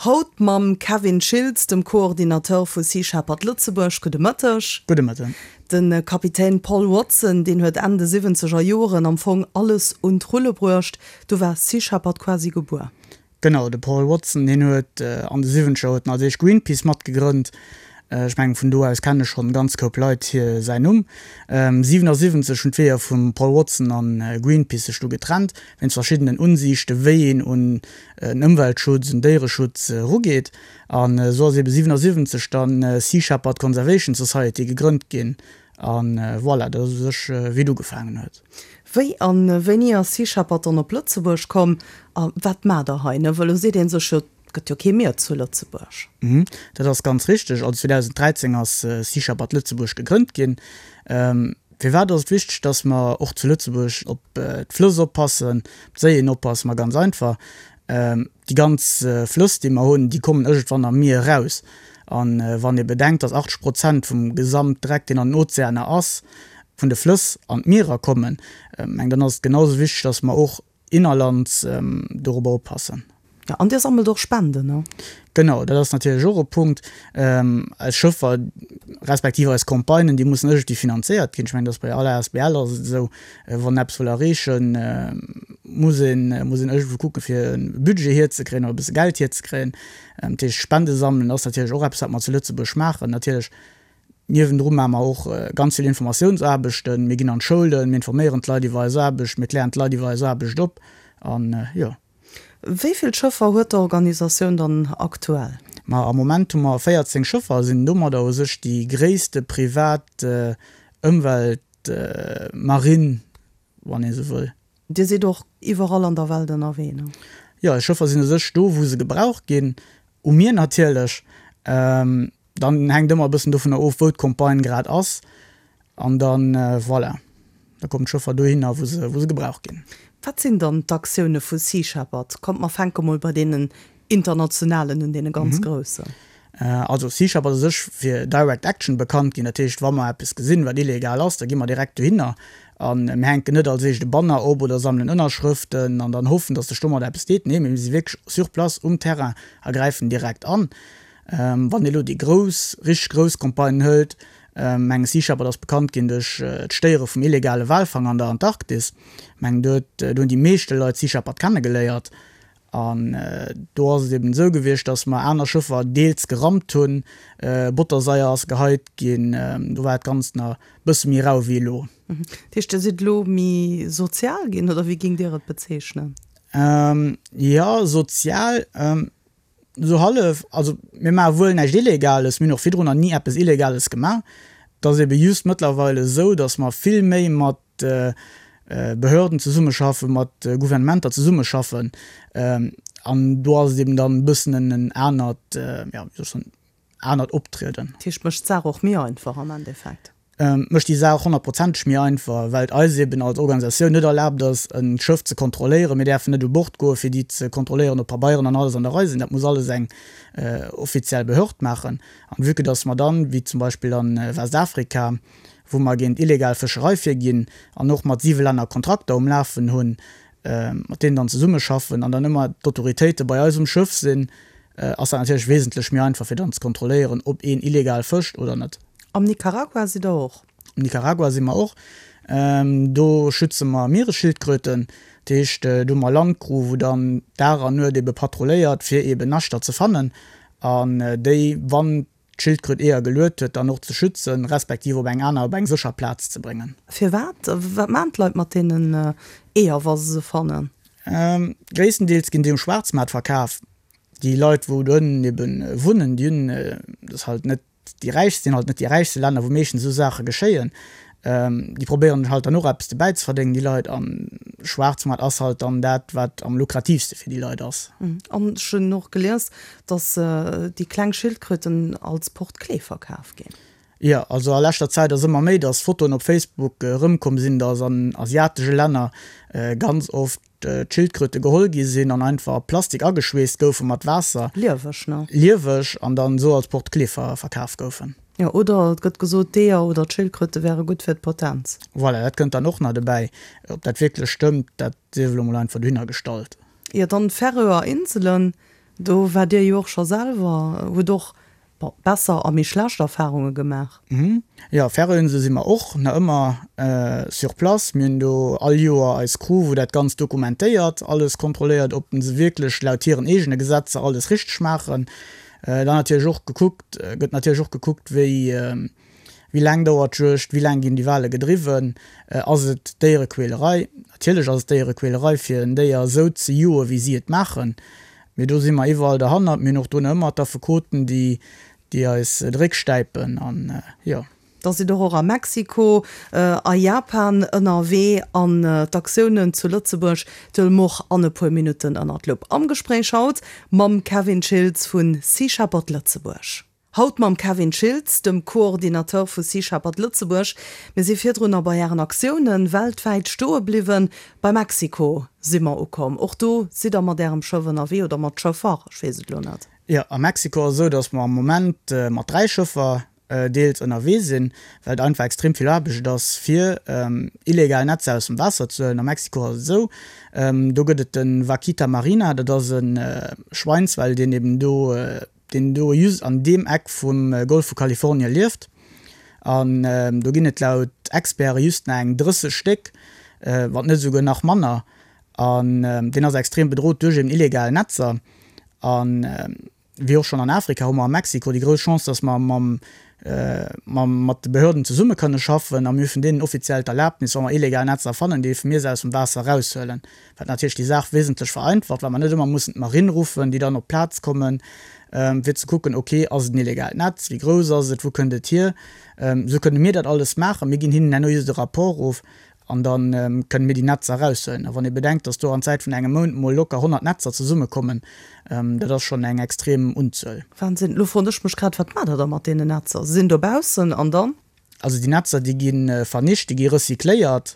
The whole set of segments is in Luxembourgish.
Haut mam Kevin Schiltz, dem Coordinateur vu Sea Shepherd Lëtzebuerg. Gudde Mëtteg. Gudde Mëtten. De Kapitän Paul Watson, deen huet Enn de siwwenzeger Joren am Fong alles un d'Rulle bruecht. Du war Sea Shepherd quasi gebuer. Genau, de Paul Watson, deen huet an de siwwenzeger huet en als éischt Greenpeace matgegrënnt. Ech mengen, vun do aus kenne schonn e ganz Koup Leit hir säin Numm. 77 hunn d'Weeër vum Paul Watson a Greenpeace sech du getrennt, wéinst verschiddenen Unsiichte wéi een un en Ëmweltschutz, un Déiereschutz erugeet. An esou ass ebe 77 dann Sea Shepherd Conservation Society gegrënnt ginn. A voilà, dat ass u sech wéi et ugefaangen huet. Wéi a wéini ass Sea Shepherd dann op Lëtzebuerg komm a wat maacht der hei? Well elo seet ee sech jo, et gëtt jo kee Mier zu Lëtzebuerg. Dat ass ganz richteg. Also 2013 ass Sea Shepherd Lëtzebuerg gegrënnt ginn. Firwat ass et wichteg, datt mer och zu Lëtzebuerg op d'Flëss oppassen, op d'Séien oppassen? Ma ganz einfach, Déi ganz Flëss, déi mer hunn, déi kommen iergendwann am Mier eraus. A wann ee bedenkt, datt 80 Prozent vum Gesamtdreck, deen an den Ozeaner ass, vun de Flëss an d'Mierer kommen, meng dann ass et genau esou wichteg, datt mer och innerlands dorobber oppassen. Jo, an Dir sammelt och Spenden, ne? Genau, dat ass natierlech och e Punkt. Eis Schëffer, respektiv eis Campagnen, déi mussen iergendwéi finanzéiert ginn. Ech mengen, dat ass bei aller asbl ass et esou, wann eppes wëll erreechen, muss een, muss een iergendwou kucken, fir e Budget hierzekréien oder e bësse Geld hierzekréien. Dat heescht, Spende sammelen ass natierlech och eppes, wat mer zu Lëtzebuerg maachen. Natierlech niewendru maache mer och ganz vill Informatiounsaarbechten. Mir ginn an d'Schoulen, mir informéieren d'Leit iwwer eis Aarbecht, mir klären d'Leit iwwer eis Aarbecht op an, jo. Wéi vill Schëffer huet d'Organisatioun dann aktuell? Ma am Moment hu mer 14 Schëffer a sinn domadder u sech déi gréisste privat Ëmweltmarinn, wann ee sou wëll. Dir sidd och iwwerall an der Welt ënnerwee, ne? Jo, eis Schëffer sinn u sech do, wou se gebraucht ginn, u Mier natierlech. Dann hänkt ëmmer e bëssen dovunner of, wou d'Campagne grad ass. An dann, voilà, da kommen d'Schëffer dohinner, wou se, wou se gebraucht ginn. Wat sinn dann d'Aktioune vu Sea Shepherd? Kommt, mer fänke mol bei deenen internationalen un, deene ganz groussen. Also Sea Shepherd ass u sech fir Direct Action bekannt ginn. Dat heescht, wa mer eppes gesinn, wat illegal ass, da gi mer direkt dohinner a mir hänken net als éischt e Banner op oder sammelen Ënnerschrëften an dann hoffen, datt sech domat eppes deet. Nee, mir si wierklech sur place um Terrain a gräifen direkt an. Wann ee lo déi grouss, richteg grouss Campagnen hëlt, mengen Sea Shepherd ass bekannt ginn duerch d'Stéiere vum illegale Walfang an der Antarktis. Mengen do huet, do hunn déi meeschte Leit Sea Shepherd kennegeléiert. An do ass et eben esou gewiescht, datt mer aner Schëffer deels gerammt hunn, Bottersaier ass geheit ginn, do war dat Ganzt nach e bësse méi rau wéi elo. Dat heescht, Dir sidd elo méi sozial ginn, oder wéi géingt Dir et bezeechnen? Jo, sozial. Esou hallef. Also mir maache wuel näischt Illegales, mir hunn och virdrun nach ni eppes Illegales gemaach. Et ass ebe just mëttlerweil esou, datt mer vill méi mat Behörden zesummeschaffen, mat Gouvernementer zesummeschaffen. An do ass et eben dann e bëssen en anert, jo, wéi soll ech soen, anert Optrieden. Dat heescht, mécht d'Saach och méi einfach am Endeffekt? Mécht déi Saach honnertprozenteg méi einfach, well et eis eben als Organisatioun net erlaabt ass, e Schëff ze kontrolléieren. Mir däerfen net u Bord goen, fir déi ze kontrolléieren, ob Pabeieren an alles an der Rei sinn. Dat muss alles eng offiziell Behörd maachen. An vue que dass mer dann, wéi zum Beispill an Westafrika, wou mer géint illegal Fëscherei virginn an och mat siwe Länner Kontrakter um Lafen hunn, mat deenen dann zesummeschaffen an dann ëmmer d'Autoritéite bei eis um Schëff sinn, ass dat natierlech wesentlech méi einfach, fir dann ze kontrolléieren, ob een illegal fëscht oder net. Am Nicaragua sidd Der och? Am Nicaragua si mer och. Do schütze mer Mieresschildkröten. Dat heescht, do hu mer Landcrew, wou dann Dag an Nuet ebe patrulléiert, fir eben Naschter ze fannen an déi, wann d'Schildkröt Eeër geluet huet, dann och ze schützen, respektiv op eng aner, op eng sécher Plaz ze bréngen. Firwat? Wat maachen d'Leit mat deenen Eeër, wa se se fannen? Gréisstendeels ginn déi um Schwaarzmaart verkaf. Déi Leit, wou do ënnen eben wunnen, déi hunn, dat ass halt net déi räichst, sinn halt net déi räichste Länner, wou meeschtens esou Saache geschéien. Déi probéieren halt dann och eppes dobäi ze verdéngen, déi Leit. An Schwaarzmaart ass halt dann dat, wat am lukratiivste fir déi Leit ass. An ech hunn och gelies, dass déi kleng Schildkröten als Porte-clés verkaf ginn. Jo, also a leschter Zäit ass ëmmer méi, dass Fotoen op Facebook erëmkomm sinn, dass an asiatesche Länner ganz oft d'Schildkröte geholl gi sinn an einfach a Plastik ageschweesst goufe mat Waasser. Lieweg, ne? Lieweg an dann esou als Porte-clés verkaf goufen. Jo, oder et gëtt gesot, d'Eeër oder d'Schildkröte wäre gutt fir d'Potenz. Voilà, dat kënnt dann och nach dobäi. Ob dat wierklech stëmmt, dat sief elo mol einfach dohinner gestallt. Jo, dann d'Färöer Inselen. Do waart Dir jo och scho selwer, hutt och, bon, besser a méi schlecht Erfarunge gemaach. Jo, Färöerinsele si mer och nach ëmmer sur place. Mir hunn do all Joer eis Crew, wou dat Ganzt dokumentéiert, alles kontrolléiert, ob se wierklech laut hiren eegene Gesetzer alles richteg maachen. Dann natierlech och gekuckt, gëtt natierlech och gekuckt, wéi wéi laang dauert d'Juegd, wéi laang ginn déi Wale gedriwwen, ass et Déierequälerei? Natierlech ass et Déierequälerei, fir en Déier esou ze joen, wéi si et maachen. Mee do si mer iwwerall derhannert. Mir hunn och do nach ëmmer d'Affekoten, déi déi eis de Réck stäipen an jo. Da sidd der och a Mexiko, a Japan ënnerwee an d'Aktiounen zu Lëtzebuerg huele mer och an e puer Minutten ënnert d'Lupp. Am Gespréich haut mam Kevin Schiltz vu Sea Shepherd Lëtzebuerg. Haut mam Kevin Schiltz, dem Coordinateur vu Sea Shepherd Lëtzebuerg. Mir si virdrunner bei Ären Aktiounen weltwäit stoe bliwwen. Bei Mexiko si mer ukomm. Och do sidd der mat Ärem Schëff ënnerwee oder mat Schëffer, ech weess et elo net. Jo, a Mexiko ass esou, datt mer am Moment mat 3 Schëffer deels ënnerwee sinn, well et einfach extrem vill Aarbecht ass, fir illegal Netzer aus dem Waasser ze huelen. A Mexiko ass et esou, do gëtt et de Vaquita marina, dat ass e Schweinswal, deen eben do, deen do just an deem Eck vum Golf vu Kalifornie lieft. An do ginn et laut Experte just nach eng 30 Stéck, wann net esouguer nach manner. An deen ass extrem bedrot duerch eben illegal Netzer. An wéi och schonn an Afrika hu mer a Mexiko déi grouss Chance, dass mer mam, mam, mat de Behörden zesumme kënne schaffen a mir hu vun deenen offiziell d'Erlaabnis, wa mer illegal Netzer fannen, dierfe mir se aus dem Waasser eraushuelen, wat natierlech déi Saach wesentlech vereinfacht, well mer net ëmmer mussen d'Marine ruffen, déi dann op d'Plaz kommen, fir ze kucken, okay, ass et en illegaalt Netz, wéi grouss ass et, wou kënnt et hier? Esou kënne mir dat alles maachen. Mir ginn hinnen herno just e Rapport of An da kënne mir déi Netzer eraushuelen. A wann ee bedenkt, datt do an Zäit vun engem Mount mol locker 100 Netzer zesummekommen, dat ass schonn eng extrem Unzuel. Wahnsinn. Elo froen ech mech grad, Wat maacht der da mat deenen Netzer? Se sinn dobaussen an dann? Also déi Netzer, déi gi vernicht, déi gi recycléiert.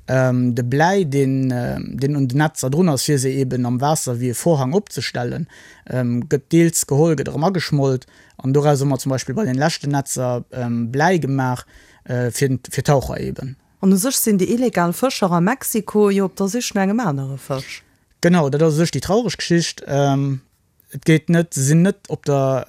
De Bläi, deen, deen un den Netzer drun ass, fir se eeben am Waasser wéi e Vorhang opzestellen, gëtt deels geholl, gëtt erëm ageschmolt. An doraus hu mer zum Beispill bei den leschten Netzer Bläi gemaach, fir, fir Taucher eeben. An u sech sinn déi illegal Fëscher a Mexiko jo op der Sich no engem anere Fësch. Genau, dat ass u sech déi traureg Geschicht. Et geet net, se sinn net op der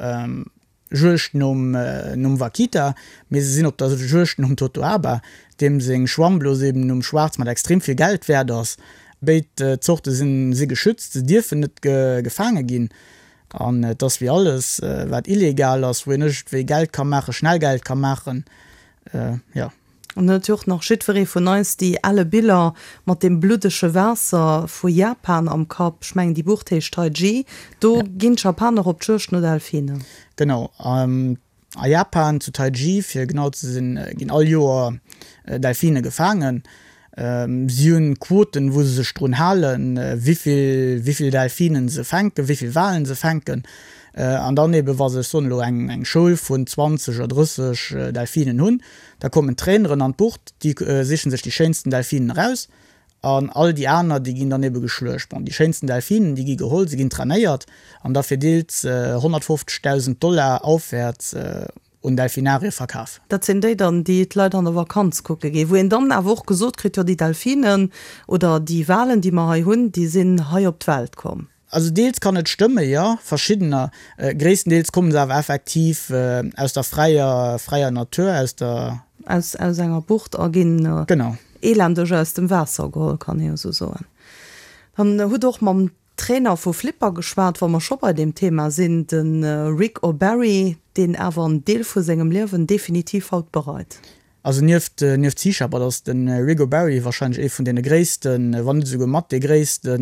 Juegd nom nom Vaquita, mee se sinn op der Juegd nom Totoaba, deem seng Schwammblos eben um Schwaarzmaart extrem vill Geld wäert ass. Béid Zorte sinn si geschützt, se dierfen net gefaange ginn. An et ass wéi alles, wat illegal ass, wou een iergendwéi Geld ka maachen, schnell Geld ka maachen, jo. An dann huet jo och nach jiddweree vun eis déi elle Biller mat deem bluddege Waasser vu Japan am Kapp. Ech mengen, déi Bucht heescht Taiji. Do ginn d'Japaner op d'Juegd no Delfinen. Genau. A Japan, zu Taiji fir genau ze sinn, ginn all Joer Delfine gefaangen. Si hunn Quoten, wou se sech drun halen, wéivill, wéivill Delfinen se fänken, wéivill Walen se fänken. An dann eben, wa se, ech soen elo, eng, eng Schoul vun 20 oder 30 Delfinen hunn, da kommen d'Traineren an d'Bucht, déi sichen sech déi schéinsten Delfinen eraus an all déi aner, déi ginn dann ebe geschluecht. Bon, déi schéinsten Delfinen, déi gi geholl, se ginn trainéiert an da fir deels 150.000 Dollar aufwäerts un Delfinarie verkaf. Dat sinn déi dann, déi d'Leit an der Vakanz kucke ginn, wou een dann awer och gesot kritt, jo déi Delfinen oder déi Walen, déi mer hei hunn, déi sinn hei op d'Welt komm. Also deels kann et stëmme, jo, verschiddener. Gréisstendeels komme se awer effektiv aus der fräier, fräier Natur, aus der. Aus, aus enger Bucht a ginn. Genau. Elendeg aus dem Waasser geholl, kann ee jo esou soen. Dann hutt och mam Trainer vu Flipper geschwat, wa mer scho bei deem Thema sinn, de Rick O'Barry, deen awer en Deel vu sengem Liewen definitiv haut bereit. Also nieft nieft Sea Shepherd ass de Rick O'Barry warscheinlech ee vun deene gréissten, wann net esouguer mat dee gréisste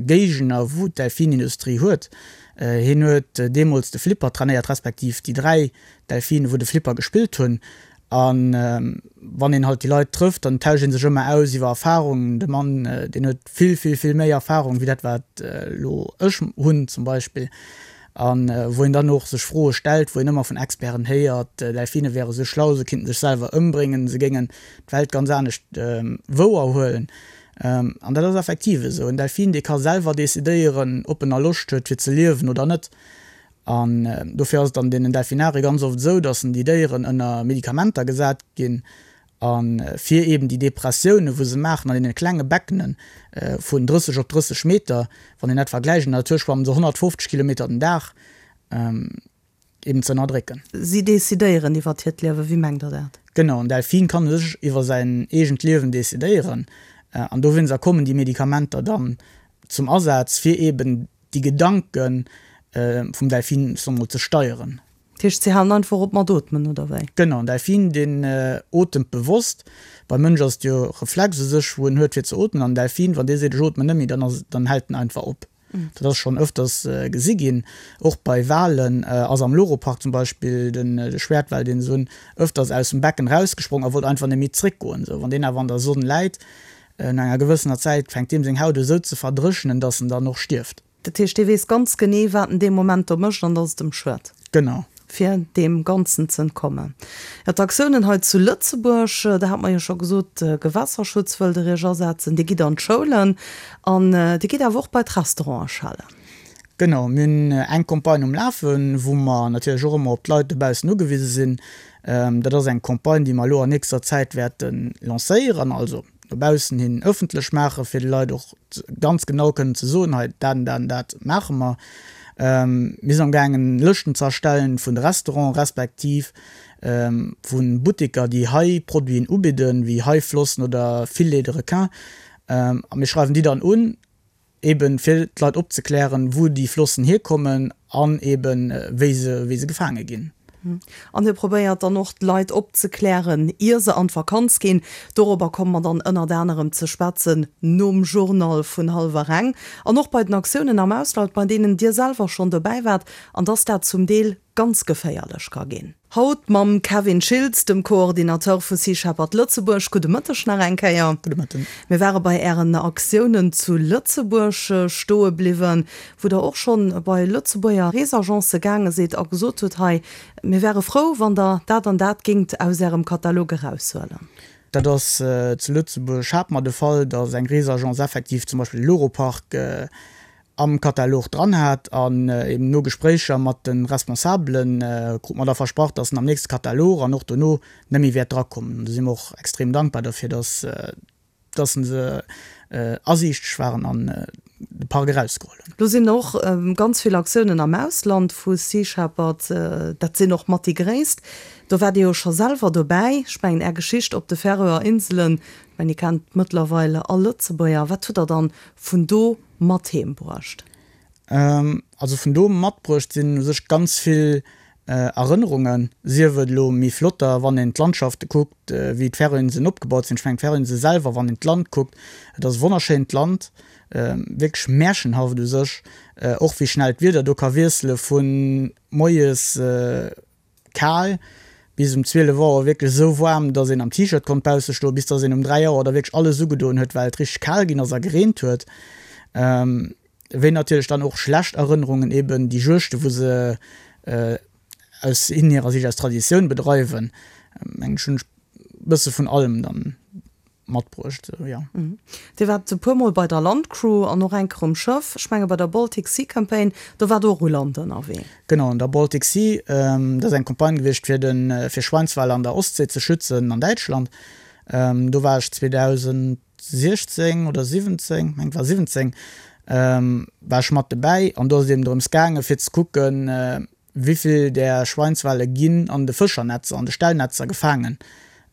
Géigner wou d'Delfinindustrie huet. Hien huet deemools de Flipper trainéiert, respektiv déi 3 Delfine wou de Flipper gespillt hunn. A wann een halt déi Leit trëfft, dann tauscht ee sech ëmmer aus iwwer Erfarungen. De Mann deen huet vill vill vill méi Erfarung wéi dat wat elo ech hunn zum Beispill. A wou een dann och sech Froe stellt, wou een ëmmer vun Experten héiert, Delfine wäre sou schlau, se kinnten sech selwer ëmbréngen, se géingen d'Welt ganz anescht wouer huelen. An dat ass effektiv esou. En Delfin, dee ka selwer decidéieren, ob en nach Loscht huet fir ze liewen oder net. An dofir ass et an deenen Delfinarie ganz oft esou, datt déi Déieren ënner Medikamenter gesat ginn. A fir eben déi Depressiounen, wou se maachen an deene klenge Beckene vun 30 op 30 Meter, wann een dat vergläicht, an der Natur schwammen se 150 Kilometer den Dag, eben ze ënnerdrécken. Si decidéieren iwwert hiert Liewen, wéi mengt Der dat? Genau, en Delfin kann u sech iwwer säin eegent Liewen decidéieren. An dowéinster kommen déi Medikamenter dann zum Asaz, fir eben déi Gedanke vum Delfin, soe mer mol, ze steieren. Dat heescht, si halen einfach op mat ootmen, oder wéi? Genau, en Delfin, deen otemt bewosst. Beim Mënsch ass et jo Reflex u sech, wou en huet fir ze ootmen. An en Delfin, wann dee seet, ech ootmen net méi, dann ass, dann hält en einfach op. Dat ass schonn ëfters gesi ginn. Och bei Walen ass am Loro Park zum Beispill de Schwäertwal, deen se hunn, ëfters aus dem Becken erausgesprong a wollt einfach net méi zréckgoen. Sou, wann deen awer an der Sonn läit, no enger gewëssener Zäit fänkt deem seng Haut u sou ze verdréchnen, datt en dann och stierft. Dat heescht, dee weess ganz genee, wat en dee Moment do mécht an datt et em schued. Genau. Fir deem Ganzen ze entkommen. Jo, d'Aktiounen hei zu Lëtzebuerg, da hat mer jo scho gesot, Gewässerschutz wëllt Der Iech asetzen. Dir gitt an d'Schoulen an Dir gitt awer och bei d'Restaurante schellen. Genau, mir hunn eng Campagne um Lafen, wou mer natierlech och ëmmer op d'Leit dobaussen ugewise sinn. Dat ass eng Campagne, déi mer elo an nächster Zäit wäerte lancéieren, also no baussen hin ëffentlech maachen, fir de Leit och ganz genau kënnen ze soen, hei dat an dat an dat maache mer. Mir sinn amgaangen Lëschten ze erstellen vun de Restauranten respektiv vu Butteker, déi hei Produiten ubidden, wéi Haiflossen oder Filets de requin. A mir schreiwen déi dann un, Eben fir d'Leit opzeklären, wou déi Flossen hierkommen an eben wéi se, wéi se gefaange ginn. An hie probéiert dann och d'Leit opzeklären, ier se an d'Vakanz ginn. Dorobber komme mer dann ënnert anerem ze schwätzen nom Journal vun hallwer eng. An och bei den Aktiounen am Ausland, bei deenen Dir selwer schonn dobäi waart, an dass dat zum Deel ganz geféierlech ka ginn. Haut mam Kevin Schiltz, dem Coordinateur vu Sea Shepherd Lëtzebuerg. Gudde Mëtteg nach eng Kéier. Gudde Mëtten. Mir ware bei Ären Aktiounen zu Lëtzebuerg stoe bliwwen, wou Der och schonn bei Lëtzebuerger Reesagence gaange sidd a gesot hutt, hei, mir wäre frou, wann Der dat an dat géingt aus Ärem Katalog eraushuelen. Dat ass zu Lëtzebuerg hat mer de Fall, datt eng Reesagence effektiv zum Beispill de Loro-Park am Katalog dran hat an eben no Gespréicher mat de Responsabelen krut mer da versprach, dass en am nächste Katalog an och dono net méi wäert drakommen. An do si mer och extrem dankbar derfir, dass dass se asiichteg waren an de Park erausgeholl hunn. Lo sinn och ganz vill Aktiounen am Ausland vu Sea Shepherd, dat sinn och mat déi gréisst. Do waart Dir jo scho selwer dobäi. Ech mengen Är Geschicht op de Färöer Inselen, ech mengen déi kennt mëttlerweil all Lëtzebuerger. Wat hutt Der dann vun do mat heem bruecht? Also vun do matbruecht sinn u sech ganz vill Erënnerungen, sief et elo méi flotter, wann een d'Landschafte kuckt, wéi d'Färöinseln opgebaut sinn. Ech mengen d'Färöinsele selwer, wann een d'Land kuckt, et ass e wonnerschéint Land, wierklech märchenhaft u sech, och wéi schnell d'Wieder do ka wiessele vu moies Kal, bis um 12 Auer wierklech esou waarm, dass een am T-Shirt konnt bausse stoen, bis dass een um 3 Auer da wierklech alles ugedoen huet, well et richteg kal ginn ass a gereent huet. Wéi natierlech dann och schlecht Erënnerungen, eben déi Juegte wou se aus hirer Sicht aus Traditioun bedreiwen. Mengen ech hunn ech bësse vun allem dann matbruecht, jo. Dir waart e puer Mol bei der Landcrew an och eng Kéier um Schëff. Ech menge bei der Baltic Sea Campaign, do waart Der och u Land ënnerwee. Genau, an der Baltic Sea, dat ass eng Campagne gewiescht fir de fir Schweinswale an der Ostsee ze schützen an Däitschland. Do war ech 2016 oder 17, meng et war 17, war ech mat dobäi an do ass et eben drëms gaange fir ze kucken, Wéivill där Schweinswale ginn an de Fëschernetzer, an de Stellnetzer gefaangen,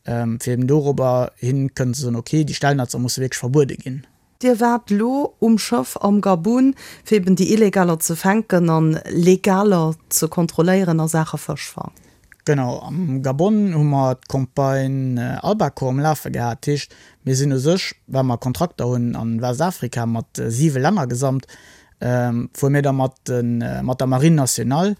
fir eben dorobber hin kënnen ze soen, ok, déi Stellnetzer musse wierklech verbuede ginn. Dir waart lo um Schëff am Gabun, fir eben déi Illegaler ze fänken an Legaler ze kontrolléieren a Saache Fëschfang. Genau, am Gabon hu mer d'Campagne Albacore um Lafe gehat. Dat heescht, mir sinn u sech, well mer Kontrakter hunn an Westafrika mat siwe Länner gesamt, fuere mir da mat de mat der Marine nationale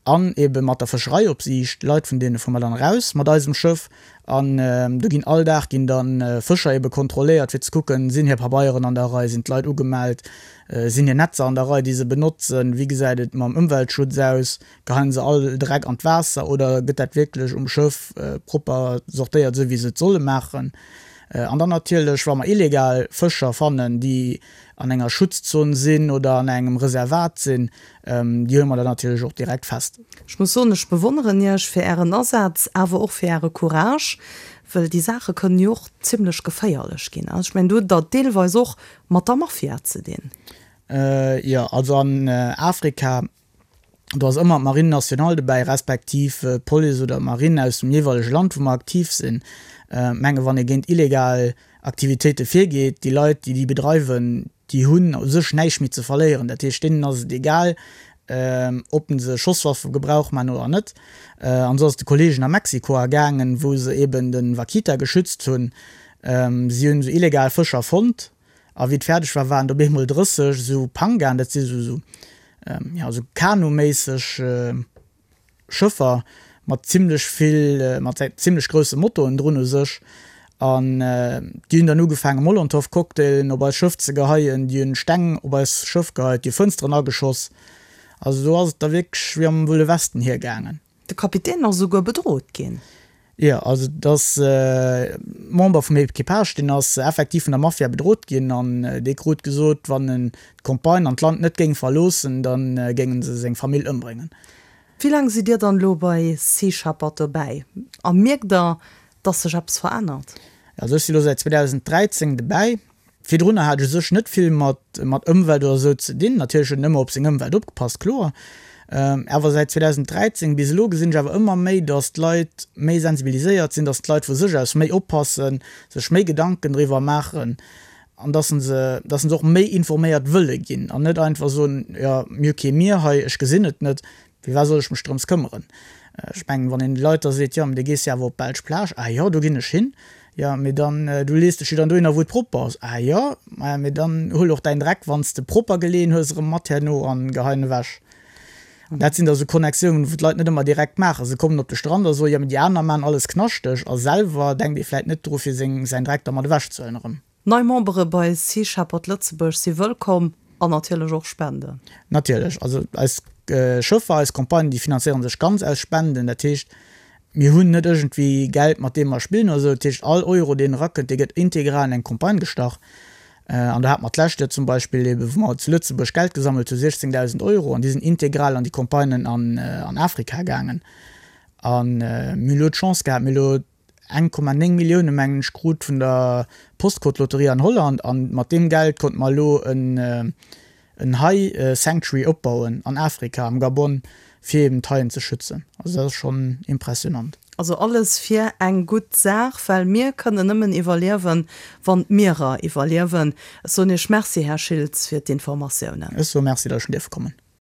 an ebe mat der Fëschereiopsiicht, Leit vun deene fuere mer dann eraus mat eisem Schëff an do ginn all Dag ginn da Fëscher ebe kontrolléiert fir ze kucken, sinn hir Pabeieren an der Rei, sinn d'Leit ugemellt, sinn hir Netzer an der Rei déi se benotzen, wéi gesäit et mam Ëmweltschutz aus, geheien se all Dreck an d'Waasser oder gëtt dat wierklech um Schëff propper sortéiert esou wéi se et solle maachen. An dann natierlech wa mer illegal Fëscher fannen déi an enger Schutzzon sinn oder an engem Reservat sinn, déi huele mer dann natierlech och direkt fest. Ech muss soen, ech bewonneren Iech fir Ären Asaz, awer och fir Äre Courage. Well déi Saache kënnen jo och zimlech geféierlech ginn. Also ech mengen, do hutt Der et deelweis och mat der Mafia ze dinn. Jo, also an Afrika, do ass ëmmer d'Marine nationale dobäi, respektiv d'Police oder d'Marine aus dem jeeweilege Land, wou mer aktiv sinn. Ech menge wann ee géint illegal Aktivitéite virgeet, déi Leit, déi déi bedreiwen, déi hunn u sech näischt méi ze verléieren. Dat heescht, deenen ass et egal, ob se Schosswaffe Gebrauch maachen oder net. An esou ass et de Kolleegen a Mexiko ergaangen, wou se eben de Vaquita geschützt hunn. Si hunn esou illegal Fëscher fonnt a wéi et fäerdeg war, waren et op eemol 30 esou Pangaen, dat si esou, jo, esou kanu-méisseg Schëffer mat zimlech vill, mat zimlech grousse Motoen drun u sech. An déi hunn dann ugefaange Molotow-Cocktailen op eist Schëff ze geheien, déi hunn Steng op eist Schëff geheit, déi hu Fënsteren ageschoss. Also do ass et da wierklech wéi am Wëlle Westen hiergaangen. De Kapitän ass esouguer bedrot ginn. Jo, also et ass e Member vum Equipage, deen ass effektiv vun der Mafia bedrot ginn an dee krut gesot, wann en d'Campagne an d'Land net géing verloossen, da géinge se seng Famill ëmbréngen. Wéi laang sidd Dir dann elo bei Sea Shepherd dobäi a mierkt Der, dass sech eppes verännert? Also ech si lo säit 2013 dobäi. Virdrunner hat ech u sech net vill mat mat Ëmwelt oder esou ze dinn. Natierlech huet een ëmmer op seng Ëmwelt opgepasst, kloer. Awer säit 2013 bis elo gesinn ech awer ëmmer méi, datt d'Leit méi sensibiliséiert sinn, datt d'Leit vu sech aus méi oppassen, sech méi Gedanken driwwer maachen an datt se datt se och méi informéiert wëlle ginn an net einfach soen, jo mir hu kee Mier hei, ech gesinn et net. Firwat soll ech mech drëms këmmeren? Ech mengen, wann een de Leit da seet, jo, mee du gees jo awer op d'belsch Plage, ah jo, do ginn ech hin, jo, mee dann, du lees dech jo dann dohinner, wou et propper ass, ah jo, maja, mee dann huel och däin Dreck, wann s de propper geleeën hues, erëm mat herno an gehei en ewech. An dat sinn da sou Connectiounen, wou d'Leit net ëmmer direkt maachen. Se kommen op de Strand a soen, jo, mee déi aner maachen alles knaschteg, a selwer denkt ee vläit net dru fir seng, säin Dreck da mat ewechzehuelen erëm. Nei Membere bei Sea Shepherd Lëtzebuerg si wëllkomm an natierlech och Spenden. Natierlech, also eis Schëffer, eis Campagnen, déi finanzéiere sech ganz aus Spenden. Dat heescht, mir hunn net iergendwéi Geld, mat deem mer spillen oder esou. Dat heescht, all Euro, deen erakënnt, dee gëtt integral an eng Campagne gestach. An do hate mer d'lescht Joer zum Beispill eebe, wou mer zu Lëtzebuerg Geld gesammelt hu, 16.000 Euro, an déi sinn integral an déi Campagnen an Afrika gaangen. A mir hunn elo d'Chance gehat, mir hu elo 1,9 Millioune mengen ech krut vun der Postcode-Lotterie an Holland an mat deem Geld konnte mer elo en en Hai Sanctuary opbauen an Afrika, am Gabon, fir eben d'Haien ze schützen. Also dat ass schonn impressionant. Also alles fir eng gutt Saach, well mir kënnen nëmmen iwwerliewen, wann d'Mierer iwwerliewen. Ech soen Iech Merci, Här Schiltz, fir d'Informatiounen. Ech soe Merci, datt ech hunn dierfe kommen.